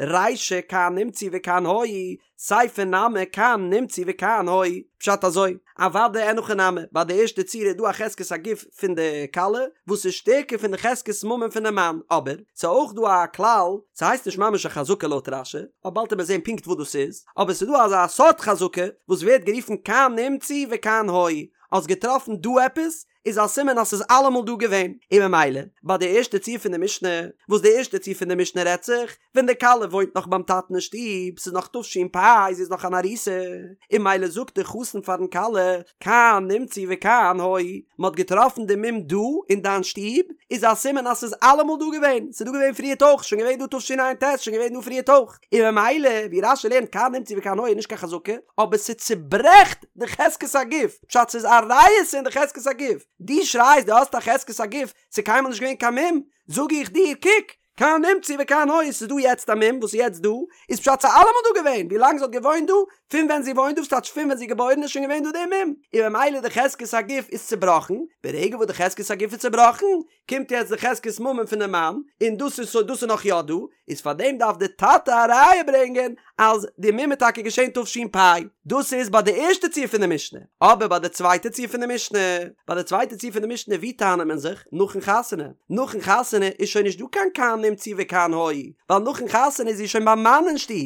[SPEAKER 1] רישא כאן נמצאו וכאן היו, סיפא נמי כאן נמצאו וכאן היו, פשט אזוי, אוודאי אין הכי נמי, ביי די ערשטע ציור איז דא א חזקת הגוף פון די כלה וואס איז שטערקער פון די חזקת ממון פונעם מאן, אבער ס'איז אויך דא א כלל, ס'הייסט נישט ממש א חזקה לויט רש"י, אבער באלד עמיר זעהן פונקט וואס דאס איז, אבער ס'איז דא אזא סארט חזקה וואס ווערט גערופן כאן נמצאו וכאן היו, האסט געטראפן דא עפעס, איז א סימן אז ס'איז אלעמאל דא געווען, און ממילא ביי די ערשטע ציור פון די משנה, וואס די ערשטע ציור פון די משנה רעדט זיך ווען די כלה וואוינט נאך ביים טאטן אין שטוב, ס'איז נאך תש"פ, זי איז נאך אן ארוסה, און ממילא זאגט די חתן פארן כלה, כאן נמצאו וכאן היו, מ'האט געטראפן די מום דא אין דיין שטוב, איז א סימן אז ס'איז אלעמאל דא געווען, ס'איז דא געווען פריערט אויך, שוין געווען דא תשע"ט, שוין געווען דא פריערט אויך, און ממילא ווי רש"י לערנט כאן נמצאו וכאן היו איז נישט קיין חזקה, אבער ס'צוברעכט די חזקת הגוף, פשט ס'איז א ריעותא אין די חזקת הגוף, דו שרייסט דו האסט א חזקת הגוף, ס'איז קיינמאל נישט געווען קיין מום, זאג איך דיר קוק, כאן נמצאו וכאן היו, ס'איז דא יעצט א מום, וואס איז יעצט דא, איז פשט ס'איז אלעמאל דא געווען, ווי לאנג זי האט געוואוינט דא, פון ווען זי וואוינט דא, ס'טייטש פון ווען זי איז געבוירן איז שוין געווען דא די מום, און ממילא די חזקת הגוף איז צובראכן, ברגע וואס די חזקת הגוף איז צובראכן, קומט יעצט די חזקת ממון פונעם מאן, און דאס איז דאס איז נאך יא דא, איז פאר דעם דארף די טאטע א ראיה ברענגען אז די מום איז טאקע געשען תש"פ, דאס איז ביי די ערשטע ציור פון די משנה, אבער ביי די צווייטע ציור פון די משנה, ביי די צווייטע ציור פון די משנה ווי טענה'ט מען זיך? נאכן חתונה, נאכן חתונה איז שוין נישט דא קיין כאן נמצאו וכאן היו, ווייל נאכן חתונה איז זי שוין ביים מאן אין שטוב,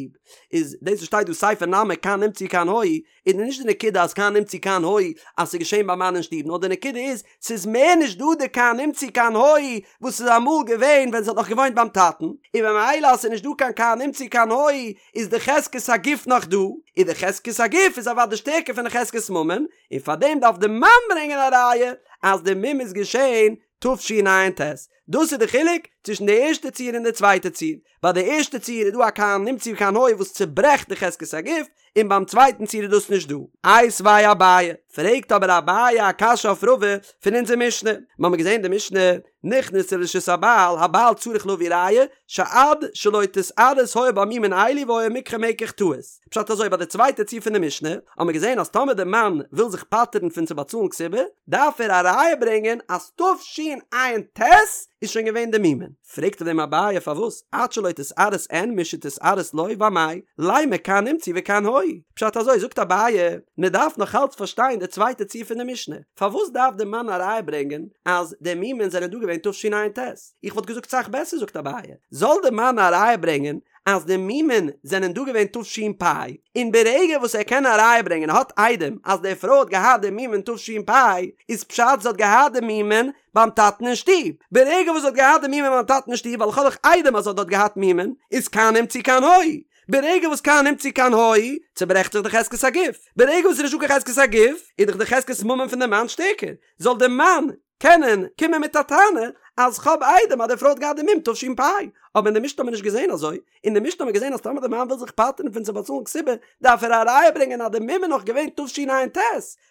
[SPEAKER 1] איז דאס וואס שטייט דא סיפא נמי כאן נמצאו כאן היו, איז נישט די נקודה אז כאן נמצאו כאן היו אז ס'איז געשען ביים מאן אין שטוב נאר די נקודה איז ס'איז מער נישט דא די כאן נמצאו כאן היו וואס איז אמאל געווען ווען זי האט נאך געוואוינט ביים טאטן און ממילא אז ס'איז נישט דא קיין כאן נמצאו כאן היו איז די חזקת הגוף נאך דא און די חזקת הגוף איז אוודאי שטערקער פון די חזקת ממון און פארדעם דארף די מאן ברענגען א ראיה אז די מום איז געשען תשע"ט. דאס איז די חילוק צווישן די ערשטע ציור און די צווייטע ציור. ביי די ערשטע ציור איז דא א כאן נמצאו וכאן היו וואס צוברעכט די חזקת הגוף, און ביים צווייטן ציור איז דאס נישט דא. איתיביה אביי, פרעגט אבער אביי א קשיא אויף רבא פון אונזער משנה. מיר האבן געזען אין די משנה, נכנסה לרשות הבעל, הבעל צריך להביא ראיה, שעד שלא תתארס היו בה מומין אלו והיה מקחו מקח טעות. פשט אזוי ביי די צווייטע ציור פון די משנה האבן מיר געזען אז טאמער די מאן וויל זיך פטר'ן פון צו באצאלן כתובה דארף ער א ראיה ברענגען אז תשע"ט איז שוין געווען די מומין. פרעגט אויף דעם אביי פארוואס עד שלא תתארס אין משתתארס לא ואמאי לימא כאן נמצאו וכאן היו. פשט אזוי זאגט אביי מען דארף נאך אלץ פארשטיין די צווייטע ציור פון די משנה פארוואס דארף די מאן א ראיה ברענגען אז די מומין זענען דא געווען תשע"ט איך וואלט געזאגט סאך בעסער זאגט אביי זאל די מאן א ראיה ברענגען אז די מומין זענען דא געווען תש"פ, און ברגע וואס ער קען א ראיה ברענגען האט עדים אז די פרוי האט געהאט די מומין תש"פ, איז פשט זי האט געהאט די מומין ביים טאטן אין שטוב, ברגע וואס זי האט געהאט די מומין ביים טאטן אין שטוב ווייל איך האב דאך עדים אז זי האט דארט געהאט מומין, איז כאן נמצאו כאן היו, ברגע וואס כאן נמצאו כאן היו, צוברעכט זיך די חזקת הגוף, ברגע וואס ס'איז נישטא קיין חזקת הגוף, איז דאך די חזקת ממון פון די מאן שטערקער, זאל די מאן קענען קומען מיט א טענה אז כ'האב עדים אז די פרוי האט געהאט די מום תש"פ. אבער אין די משנה האט מען נישט געזען אזוי, אין די משנה האט מען געזען אז טאמער די מאן וויל זיך פטר'ן פון צו באצאלן כתובה דארף ער א ראיה ברענגען אז די מום איז נאך געווען תשע"ט,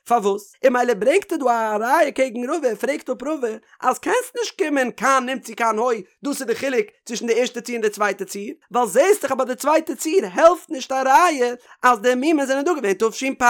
[SPEAKER 1] פארוואס? און ממילא ברענגט ער דא א ראיה קעגן רבא, ער פרעגט אפ רבא אז קענסט נישט קומען כאן נמצאו כאן היו, דאס איז די חילוק צווישן די ערשטע ציור און די צווייטע ציור, ווייל זעסט דאך אז ביי די צווייטע ציור העלפט נישט א ראיה אז די מומין זענען דא געווען תש"פ.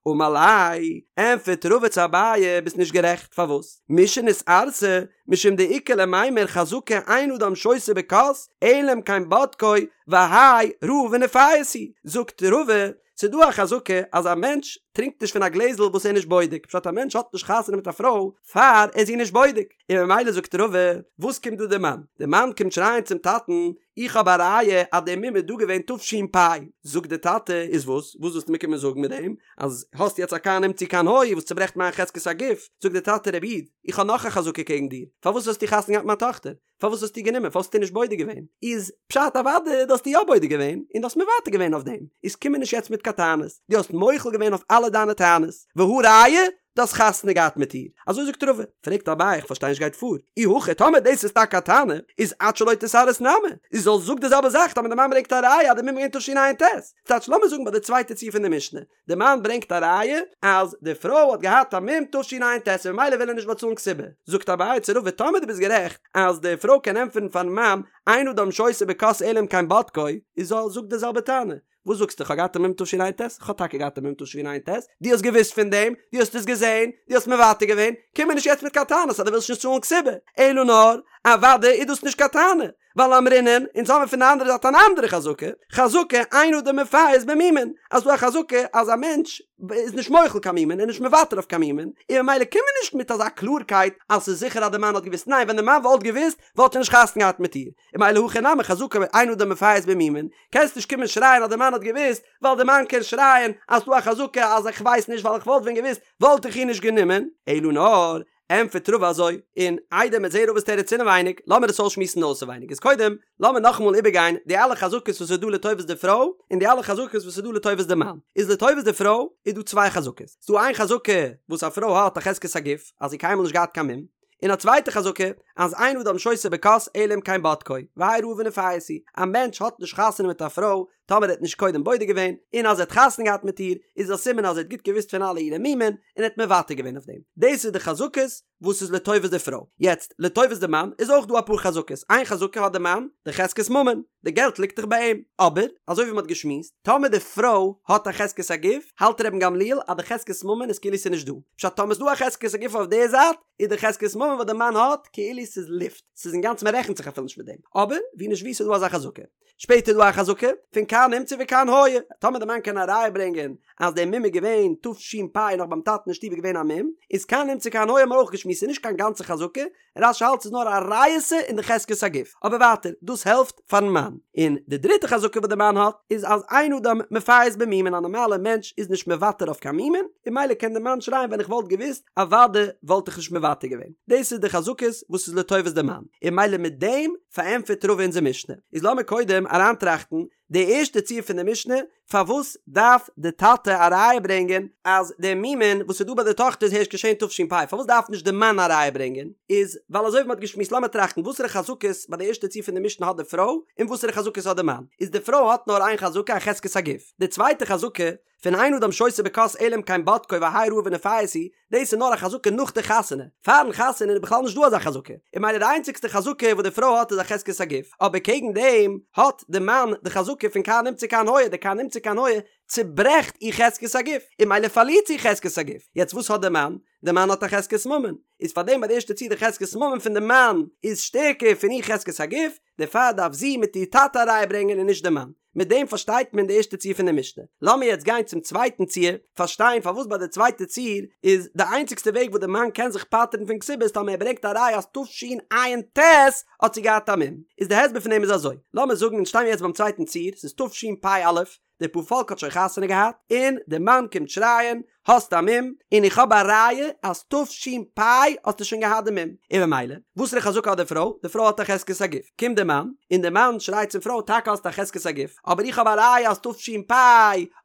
[SPEAKER 1] אמר ליה, ענטפערט רבא צו אביי, ביסט נישט גערעכט, פארוואס? משנתארסה, משום דאיכא למימר חזקה אין אדם שותה בכוס אלא אם כן בודקו והאי ראה וניפייס הוא, זאגט רבא, ס'איז דא א חזקה אז א מענטש טרינקט נישט פון א גלעזל וואס ער איז נישט בודק, פשט א מענטש האט נישט חתונה מיט א פרוי פאר ער איז איר נישט בודק, און ממילא זאגט רבא, וואס קומט דא די מאן? די מאן קומט שרייען צום טאטן, איך האב א ראיה אז די מום איז דא געווען תש"פ, זאגט די טאטע, איז וואס? וואס ווילסטו מיר קומען זאגן מיט דעם? אז האסט יעצט א כאן נמצאו כאן היו וואס צוברעכט מיין חזקת הגוף? זאגט די טאטע, רבי איד, איך האב נאך א חזקה קעגן דיר, פארוואס האסטו חתונה געהאט מיט מיין טאכטער? פארוואס האסטו גענומען? פארוואס האסטו נישט בודק געווען? איז פשט אוודאי דו האסט יא בודק געווען און דו האסט מוותר געווען אויף דעם, איז קום מיר נישט יעצט מיט קיין טענות, דו האסט מוחל געווען אויף אלע דיינע טענות, והא ראיה, דו האסט חתונה געהאט מיט איר. אזוי זאגט רבא. פרעגט אביי איך פארשטיי נישט גייט פאר, אי הכי טאמער דאס איז טאקע א טענה, איז עד שלא תתארס נמי, איז זאל זאג די זעלבע זאך טאמער די מאן ברענגט א ראיה אז די מום איז געווען תשע"ט, ס'טייטש לאמיר זאגן ביי די צווייטע ציור פון די משנה, די מאן ברענגט א ראיה אז די פרוי האט געהאט א מום תשע"ט און ממילא וויל ער נישט באצאלן כתובה, זאגט אביי צו רבא טאמער דו ביסט גערעכט אז די פרוי קען ענטפערן פארן מאן אין אדם שותה בכוס אלא אם כן בודקו, איז זאל זאג די זעלבע טענה, וואס זאגסטו כ'האב געהאט א מום תשע"ט? כ'האב טאקע געהאט א מום תשע"ט, דו האסט געוואוסט פון דעם, דו האסט עס געזען, דו האסט מוותר געווען, קום מיר נישט יעצט מיט קיין טענות אז דו ווילסט נישט צאלן כתובה, אלא נאר אוודאי איז דאס נישט קיין טענה, ווייל אמרינן, אונז האבן פון די אנדערע זייט אן אנדערע חזקה, חזקה אין אדם מפייס במומין, אז ס'דא א חזקה אז א מענטש איז נישט מוחל קיין מומין און נישט מוותר אויף קיין מומין, און ממילא קום מיר נישט מיט אזא קלארקייט אז ס'איז זיכער אז די מאן האט געוואוסט, ניין ווען די מאן וואלט געוואוסט וואלט ער נישט חתונה געהאט מיט איר, און ממילא הכא נמי חזקה אין אדם מפייס במומין, קענסט נישט קומען שרייען אז די מאן האט געוואוסט, ווייל די מאן קען שרייען אז ס'דא א חזקה אז איך ווייס נישט ווייל איך וואלט ווען געוואוסט וואלט איך איר נישט גענומען, אלא נאר ענטפערט רבא אזוי, און איידער מיר זעהן רבא'ס תירוץ אינעווייניג, לאמיר עס אויסשמועסן אויסעווייניג. איז קודם, לאמיר נאכאמאל איבערגיין די אלע חזקות וואס איז דא לטובת די פרוי, און די אלע חזקות וואס איז דא לטובת די מאן. איז לטובת די פרוי איז דא צוויי חזקות. ס'איז דא איין חזקה וואס א פרוי האט א חזקת הגוף, אז זי קיינמאל נישט געהאט קיין מום, און א צווייטע חזקה, אז אין אדם שותה בכוס אלא אם כן בודקו, והאי ראה וניפייס הוא, א מענטש האט נישט חתונה מיט א פרוי טאמער ער האט נישט קודם בודק געווען, און אז ער האט חתונה געהאט מיט איר, איז א סימן אז ער האט גוט געוואוסט פון אלע אירע מומין, און ער האט מוותר געווען אויף דעם. דאס איז די חזקות וואס איז לטובת די פרוי. יעצט, לטובת די מאן איז אויך דא אפאר חזקות. איין חזקה האט די מאן, די חזקת ממון, די געלט ליגט דאך ביי אים. אבער, אזוי ווי מען האט געשמועסט, טאמער די פרוי האט א חזקת הגוף, האלט רבן גמליאל אז די חזקת ממון איז כאילו ס'איז נישט דא. פשט, טאמער איז דא א חזקת הגוף אויף די זייט, איז די חזקת ממון וואס די מאן האט כאילו ס'איז לופט. ס'איז אינגאנצן מען רעכנט זיך אפילו נישט מיט דעם. אבער, ווי נישט ווי ס'איז דא אזא חזקה. שפעטער איז דא א חזקה פון כאן נמצא וכאן היה, טאמער די מאן קען א ראיה ברענגען אז דער מום איז געווען תש"פ נאך ביים טאטן אין שטוב איז געווען א מום, איז כאן נמצא כאן היה האבן מיר אויך געשמועסט ס'איז נישט קיין גאנצע חזקה, רש"י האלט ס'איז נאר א ריעותא אין די חזקת הגוף, אבער ווייטער דאס העלפט פארן מאן. און די דריטע חזקה וואס די מאן האט איז אז אין אדם מפייס במומין א נארמאלער מענטש איז נישט מוותר אויף קיין מומין, און ממילא קען די מאן שרייען ווען איך וואלט געוואוסט אוודאי וואלט איך נישט מוותר געווען. דאס איז די חזקות וואס איז לטובת די מאן, און ממילא מיט דעם פארענטפערט רבא אונזער משנה. איז לאמיר קודם אריינטראכטן די ערשטע ציור פון די משנה, פארוואס דארף די טאטע א ראיה ברענגען אז די מומין וואס איז דא ביי די טאכטער איז הערשט געשען תש"פ, פארוואס דארף נישט די מאן א ראיה ברענגען? איז ווייל אזוי ווי מ'האט געשמועסט לאמיר טראכטן וואסערע חזקות ביי די ערשטע ציור פון די משנה האט די פרוי און וואסערע חזקות האט די מאן, איז די פרוי האט נאר איין חזקה א חזקת הגוף, די צווייטע חזקה פון אין אדם שותה בכוס אלא אם כן בודקו והאי ראה וניפייס הוא, דאס איז נאר א חזקה נאך די חתונה, פארן חתונה איז בכלל נישט דא אזא חזקה, און ממילא די איינציגסטע חזקה וואס די פרוי האט איז א חזקת הגוף, אבער קעגן דעם האט די מאן די חזקה פון כאן נמצא כאן היה, די כאן נמצא כאן היה צוברעכט איר חזקת הגוף, און ממילא פארלירט זי חזקת הגוף, יעצט וואס האט די מאן? די מאן האט א חזקת ממון, איז פארדעם ביי די ערשטע ציור די חזקת ממון פון די מאן איז שטערקער פון איר חזקת הגוף, דערפאר דארף זי מיט איר טאטע א ראיה ברענגען און נישט די מאן. מיט דעם פארשטייט מען די ערשטע ציור פון די משנה. לאמיר יעצט גיין צום צווייטן ציור, פארשטיין פארוואס ביי די צווייטע ציור איז די איינציגסטע וועג וואס די מאן קען זיך פטר'ן פון כתובה איז טאמער ער ברענגט א ראיה אז תשע"ט האט זי געהאט א מום. איז די הסבר פון דעם איז אזוי, לאמיר זאגן אונז שטייען יעצט ביים צווייטן ציור, ס'איז תשפ"א, די פארפאלק האט שוין חתונה געהאט, און די מאן קומט שרייען, האסט א מום, און איך האב א ראיה אז תש"פ האסטו שוין געהאט די מום, און במילא, וואסערע חזקה האט די פרוי? די פרוי האט א חזקת הגוף. קומט די מאן, און די מאן שרייט צום פרוי, טאקע האסטו א חזקת הגוף, אבער איך האב א ראיה אז תש"פ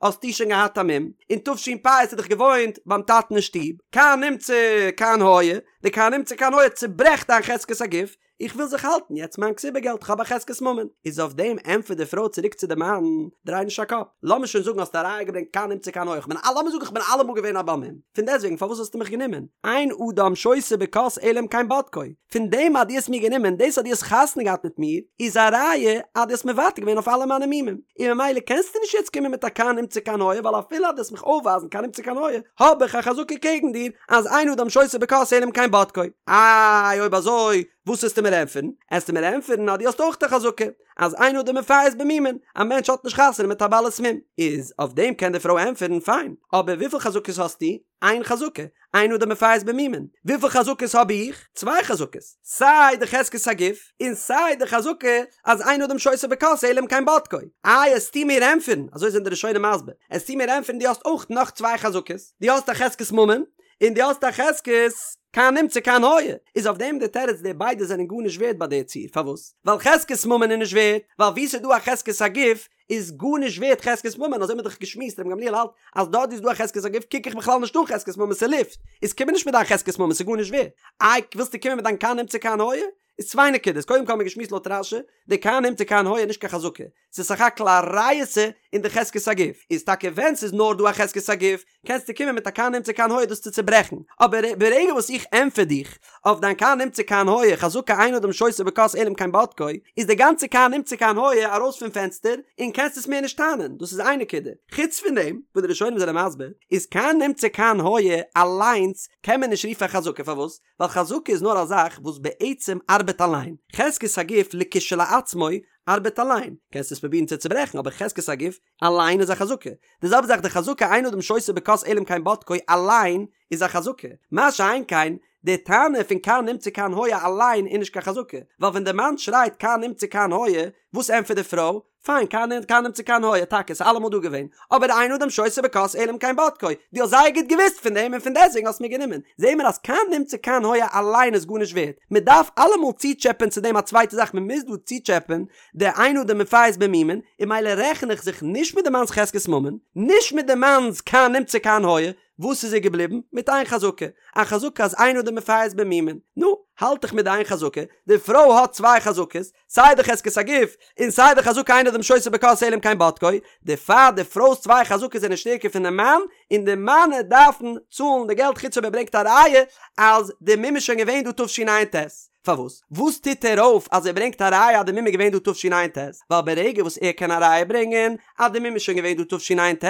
[SPEAKER 1] האסטו שוין געהאט א מום, און תש"פ האסטו דאך געוואוינט ביים טאטן אין שטוב, כאן נמצא כאן היה, די כאן נמצא כאן היה צוברעכט דיין חזקת הגוף, איך וויל זיך האלטן יעצט מיין כתובה געלט, כ'האב א חזקת ממון. איז אויף דעם ענטפערט די פרוי צוריק צו די מאן, דריי נישט א קאפ, לאמיר שוין זאגן האסט א ראיה געברענגט כאן נמצא כאן היה, כ'בין א לאמיר זאגן כ'בין אלעמאל געווען א בעל מום, פון דעסטוועגן פארוואס האסטו מיך גענומען? אין אדם שותה בכוס אלא אם כן בודקו, פון דעם אז דו האסט מיר גענומען, דאס אז דו האסט חתונה געהאט מיט מיר, איז א ראיה אז דו האסט מוותר געווען אויף אלע מיינע מומים, און ממילא קענסטו נישט יעצט קומען מיט א כאן נמצא כאן היה, ווייל אפילו אז דו וועסט מיך אויפווייזן כאן נמצא כאן היה, האב איך א חזקה קעגן דיר אז אין אדם שותה בכוס אלא אם כן בודקו. איי אויב אזוי וואס וועסטו מיר ענטפערן? עסטו מיר ענטפערן אז דו האסט אויך א חזקה אז אין אדם מפייס במומין, א מענטש האט נישט חתונה מיט א בעלת מום. איז אויף דעם קען די פרוי ענטפערן, פיין, אבער וויפיל חזקות האסטו? איין חזקה, אין אדם מפייס במומין. וויפיל חזקות האב איך? צוויי חזקות. סיי די חזקת הגוף, און סיי די חזקה אז אין אדם שותה בכוס אלא אם כן בודקו. איי עסטו מיר ענטפערן, אזוי זענען די ראשונים מסביר, עסטו מיר ענטפערן דו האסט אויך נאך צוויי חזקות, דו האסט א חזקת ממון, און דו האסט א חזקת כאן נמצא כאן היה. איז אויף דעם די תירוץ די ביידע זענען גארנישט ווערט ביי די ציור, פארוואס? ווייל חזקת ממון איז נישט ווערט, ווייל וואו ס'איז דא א חזקת הגוף איז גארנישט ווערט חזקת ממון, אזוי האט מען דאך געשמועסט, רבן גמליאל האלט אז דארט איז דא א חזקת הגוף קוק איך בכלל נישט אן חזקת ממון ס'איז לופט, איז קום מיר נישט מיט דיין חזקת ממון ס'איז גארנישט ווערט, איי ווילסטו קומען מיט דיין כאן נמצא כאן היה? איז צוויי נקודות, קודם כל האט מען געשמועסט לויט רש"י, די כאן נמצא כאן היה איז נישט קיין חזקה, ס'איז סך הכל א ריעותא אין די חזקת הגוף, איז טאקע ווען ס'איז נאר דא א חזקת הגוף קענסטו קומען מיט א כאן נמצא כאן היה דאס צו צוברעכן, אבער ברגע וואס איך ענטפער דיך אויף דיין כאן נמצא כאן היה חזקה אין אדם שותה בכוס אלא אם כן בודקו, איז די גאנצע כאן נמצא כאן היה ארויס פון פענסטער און קענסט עס מער נישט טענה'ן, דאס איז איין נקודה. חוץ פון דעם וואס די ראשונים זענען מסביר, איז כאן נמצא כאן היה אליינס קען מען נישט רופן א חזקה, פארוואס? ווייל חזקה איז נאר א זאך וואס בעצם ארבעט אליין, חזקת הגוף לכשלעצמו ארבעט אליין, קענסט עס פרובירן צו צוברעכן אבער חזקת הגוף אליין איז א חזקה. די זעלבע זאך די חזקה אין אדם שותה בכוס אלא אם כן בודקו אליין איז א חזקה. מה שאין כן די טענה פון כאן נמצא כאן היה אליין איז נישט קיין חזקה. ווייל ווען די מאן שרייט כאן נמצא כאן היה, וואס ענטפערט די פרוי? פיין כאן כאן נמצא כאן היה, טאקע ס'איז אלעמאל דא געווען, אבער אין אדם שותה בכוס אלא אם כן בודקו, דו האסט זייער גוט געוואוסט פון דעם און פון דעסטוועגן האסט מיר גענומען. זעהן מיר אז כאן נמצא כאן היה אליין איז גארנישט ווערט. מ'דארף אלעמאל צוטשעפען צו דעם א צווייטע זאך, מ'מוז דא צוטשעפען די אין אדם מפייס במומין, און ממילא רעכן איך זיך נישט מיט די מאנ'ס חזקת ממון, נישט מיט די מאנ'ס כאן נמצא כאן היה, וואס איז ער געבליבן? מיט איין חזקה, א חזקה אז אין אדם מפייס במומין, נו, האלט איך מיט די איין חזקה, די פרוי האט צוויי חזקות, סיי די חזקת הגוף, און סיי די חזקה אין אדם שותה בכוס אלא אם כן בודקו, דערפאר די פרוי'ס צוויי חזקות זענען שטערקער פונעם מאן, און די מאן עט דארפן צאלן די געלט חוץ אויב ער ברענגט א ראיה אז די מום איז שוין געווען דא תשע"ט. פארוואס? וואס טוט ער אויף אז ער ברענגט א ראיה אז די מום איז געווען דא תשע"ט? ווייל ברגע וואס ער קען א ראיה ברענגען אז די מום איז שוין געווען דא תשע"ט,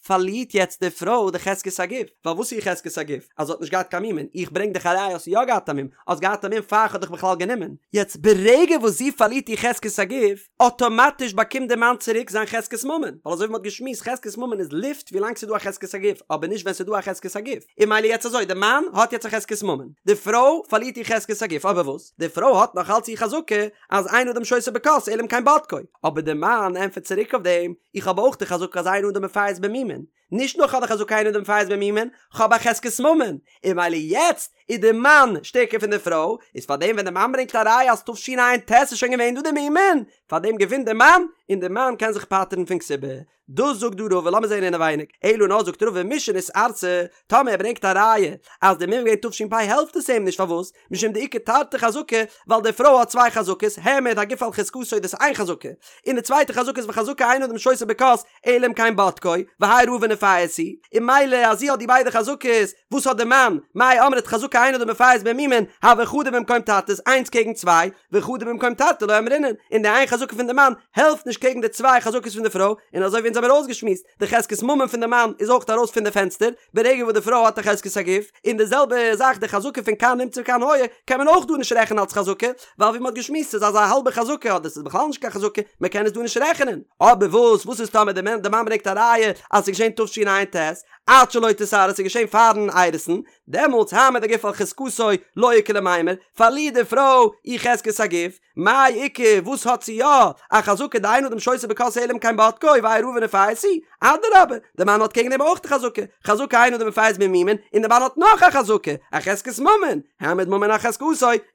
[SPEAKER 1] פארלירט יעצט די פרוי די חזקת הגוף. ווייל וואס איז איר חזקת הגוף? אז זי האט נישט געהאט קיין מומין. איך ברענג דיך א ראיה האסט יא געהאט א מום, האסט געהאט א מום פאר איך האב דיך בכלל גענומען. יעצט ברגע וואס זי פארלירט איר חזקת הגוף, אטאמאטיש באקומט די מאן צוריק זיין חזקת ממון. ווייל אזוי ווי מ'האט געשמועסט חזקת ממון איז לופט ווילאנג ס'איז דא א חזקת הגוף, אבער נישט ווען ס'איז דא א חזקת הגוף. און ממילא יעצט אזוי, די מאן האט יעצט א חזקת ממון, די פרוי פארלירט איר חזקת הגוף, אבער וואס? די פרוי האט נאך אלץ איר חזקה אז אין אדם שותה בכוס אלא אם כן בודקו, אבער די מאן ענטפערט צוריק אויף דעם, איך האב אויך די חזקה אז אין אדם מפייס במומין, נישט נאר כ'האב די חזקה אין אדם מפייס במומין, כ'האב א חזקת ממון, און ממילא יעצט איז די מאן שטערקער פון די פרוי, איז פארדעם ווען די מאן ברענגט א ראיה אז תשע"ט איז שוין געווען דא די מומין, פארדעם געווינט די מאן, און די מאן קען זיך פטר'ן פון כתובה. דאס זאגט דא רבא, לאמיר זען אינעווייניג, אלא נאר זאגט רבא משנתארסה, טאמער ער ברענגט א ראיה אז די מום איז געווען תש"פ העלפט עס אים נישט פארוואס? משום דאיכא תרתי חזקה, ווייל די פרוי האט צוויי חזקות, העמד הגוף על חזקתו דאס איז איין חזקה, און די צווייטע חזקה איז וחזקה אין אדם שותה בכוס אלא אם כן בודקו, והאי ראה ונפייס הוא, און ממילא אז זי האט די ביידע חזקות, וואס האט די מאן? מאי אמרת חזקה אין אדם מפייס במומין, הוי חדא במקום תרתי איז איינס קעגן צוויי, וחדא במקום תרתי לא אמרינן, און די איין חזקה פון די מאן העלפט נישט קעגן די צוויי חזקות פון די פרוי, און אזוי ווי אונז האמיר אויסגעשמועסט, די חזקת ממון פון די מאן איז אויך ארויס פון די פענסטער, ברגע וואס די פרוי האט א חזקת הגוף, און די זעלבע זאך די חזקה פון כאן נמצא וכאן היה, קען מען אויך דא נישט רעכענען אלס חזקה, ווייל ווי מ'האט געשמועסט ס'איז אזא האלבע חזקה אדער ס'איז בכלל נישט קיין חזקה, מ'קען עס דא נישט רעכענען. אבער וואס וואס איז טאמער די מאן ברענגט א ראיה אז ס'איז געשען תשע"ט, עד שלא תתארס ס'איז געשען פארן אירוסין, דעמאלטס העמד הגוף על חזקתו לא איכא למימר, פארלירט די פרוי איר חזקת הגוף, מאי איכא וואס האט זי יא, א חזקה דאין אדם שותה בכוס אלא אם כן בודקו והאי ראה ונפייס הוא, אדרבה, די מאן האט קעגן דעם אויך די חזקה, חזקה אין אדם מפייס במומין, און די מאן האט נאך א חזקה, א חזקת ממון, העמד ממון על חזקתו,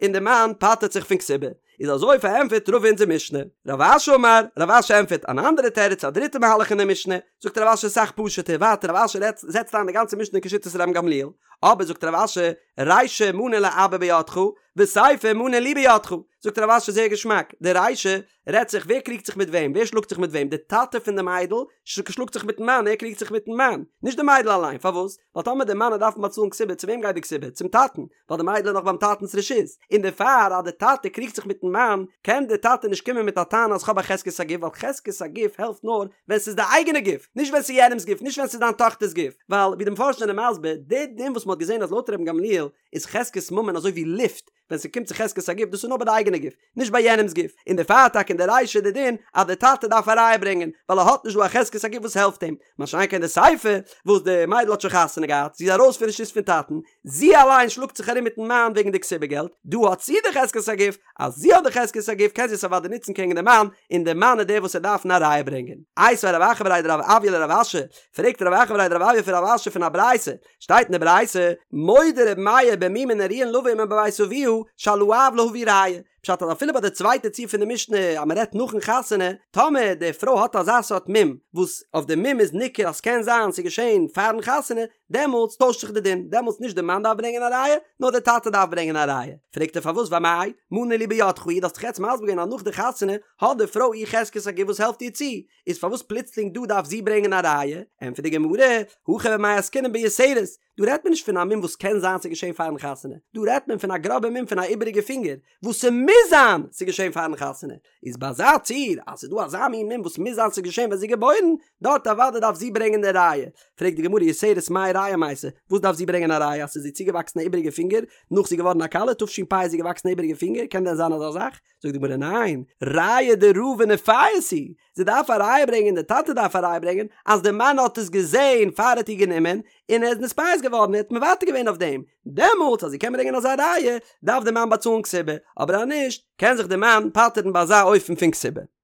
[SPEAKER 1] און די מאן פטר'ט זיך פון כתובה. איז אזוי פארענטפערט רבא אונזער משנה. רב אשי אמר, רב אשי ענטפערט אן אנדערע תירוץ א דריטע מהלך אין די משנה, זאגט רב אשי אסאך פשוט'ער, ווייטער רב אשי רעדט זעצט איין די גאנצע משנה כשיטת רבן גמליאל, אבער זאגט רב אשי, רישא מנה לאבא בידך, וסיפא מנה לי בידך, זאגט רב אשי זייער געשמאק, די רישא רעדט זיך ווער קריגט זיך מיט וועם, ווער שלאגט זיך מיט וועם, די טאטע פון די מיידל שלאגט זיך מיטן מאן, ער קריגט זיך מיטן מאן, נישט די מיידל אליין, פארוואס? ווייל טאמער די מאן וועט דארפן באצאלן כתובה, צו וועם גייט די כתובה? צום טאטן, ווייל די מיידל איז נאך ביים טאטנ'ס רשות, און דערפאר אז די טאטע קריגט זיך מיטן מאן, קען די טאטע נישט קומען מיט א טענה אז כ'האב א חזקת הגוף, ווייל חזקת הגוף העלפט נאר ווען ס'איז די אייגענע גוף, נישט ווען ס'איז יענעמ'ס גוף, נישט ווען ס'איז דיין טאכטער'ס גוף, ווייל ווי די מפרשים זענען מסביר, די דין וואס מ'האט געזען אז לויט רבן גמליאל איז חזקת ממון אזוי ווי לופט ווען ס'קומט צו חזקת הגוף, דאס איז נאר ביי די אייגענע גוף, נישט ביי יענעמ'ס גוף, און דערפאר טאקע אין די רישא די דין אז די טאטע דארף א ראיה ברענגען, ווייל ער האט נישט דא א חזקת הגוף וואס העלפט אים, מה שאין כן די סיפא וואס די מיידל האט שוין חתונה געהאט, זי איז ארויס פון רשות פון טאטן, זי אליין שלאגט זיך ארום מיטן מאן וועגן די כתובה געלט, דא האט זי די חזקת הגוף, אז זי האט די חזקת הגוף קען זי עס אוודאי נוצן קעגן די מאן, און די מאן איז דער וואס ער דארף א ראיה ברענגען. איתיביה רב אחא בריה דרב אויא לרב אשי, פרעגט רב אחא בריה דרב אויא פון רב אשי פון א ברייתא, שטייט אין די ברייתא, מודה ר' מאיר במומין הראויין לבא עמה מבית אביה, שעל האב להביא ראיה. פשט אז אפילו ביי די צווייטע ציור פון די משנה אז מען רעדט נאכן חתונה, טאמער די פרוי האט אזא סארט מום וואס אויף די מום איז ניכר אז ס'קען זיין ס'איז געשען פארן חתונה, דעמאלטס טוישט זיך די דין, דעמאלטס נישט די מאן דארף ברענגען א ראיה, נאר די טאטע דארף ברענגען א ראיה. פרעגט ער פארוואס ואמאי, מנה לי בידך הוא, דו האסט דאך יעצט מסביר געווען אז נאך די חתונה האט די פרוי איר חזקת הגוף וואס העלפט איר צו, איז פארוואס פלוצלינג דא דארף זי ברענגען א ראיה? ענטפערט די גמרא, הכא במאי עסקינן ביותרת, דא רעדט מען נישט פון א מום וואס קען זיין ס'איז געשען פארן חתונה, דא רעדט מען פון א גראבע מום פון א איבעריגע פינגער וואס ס'מוז זיין ס'איז געשען פארן חתונה, איז ביי אזא ציור אז ס'איז דא אזא מין מום וואס מוז זיין ס'איז געשען ווען זי איז געבוירן, דארט אוודאי דארף זי ברענגען די ראיה. פרעגט די גמרא יותרת מאי ראיה מייתי, וואס דארף זי ברענגען א ראיה אז ס'איז איר צוגעוואקסן א איבעריגע פינגער נאך זי איז געווארן א כלה, תש"פ איז איר געוואקסן א איבעריגע פינגער, קען דען זיין אזא זאך? זאגט די גמרא ניין, ראיה דראה וניפייס הוא, זי דארף א ראיה ברענגען, די טאטע דארף א ראיה ברענגען אז די מאן האט עס געזען פאר ער האט איר גענומען, און ער איז נתפייס געווארן, ער האט מוותר געווען אויף דעם, דעמאלטס אז זי קען ברענגען אזא ראיה, דארף די מאן באצאלן כתובה, אבער אז נישט, קען זיך די מאן פטר'ן ביי אזא אופן פון כתובה.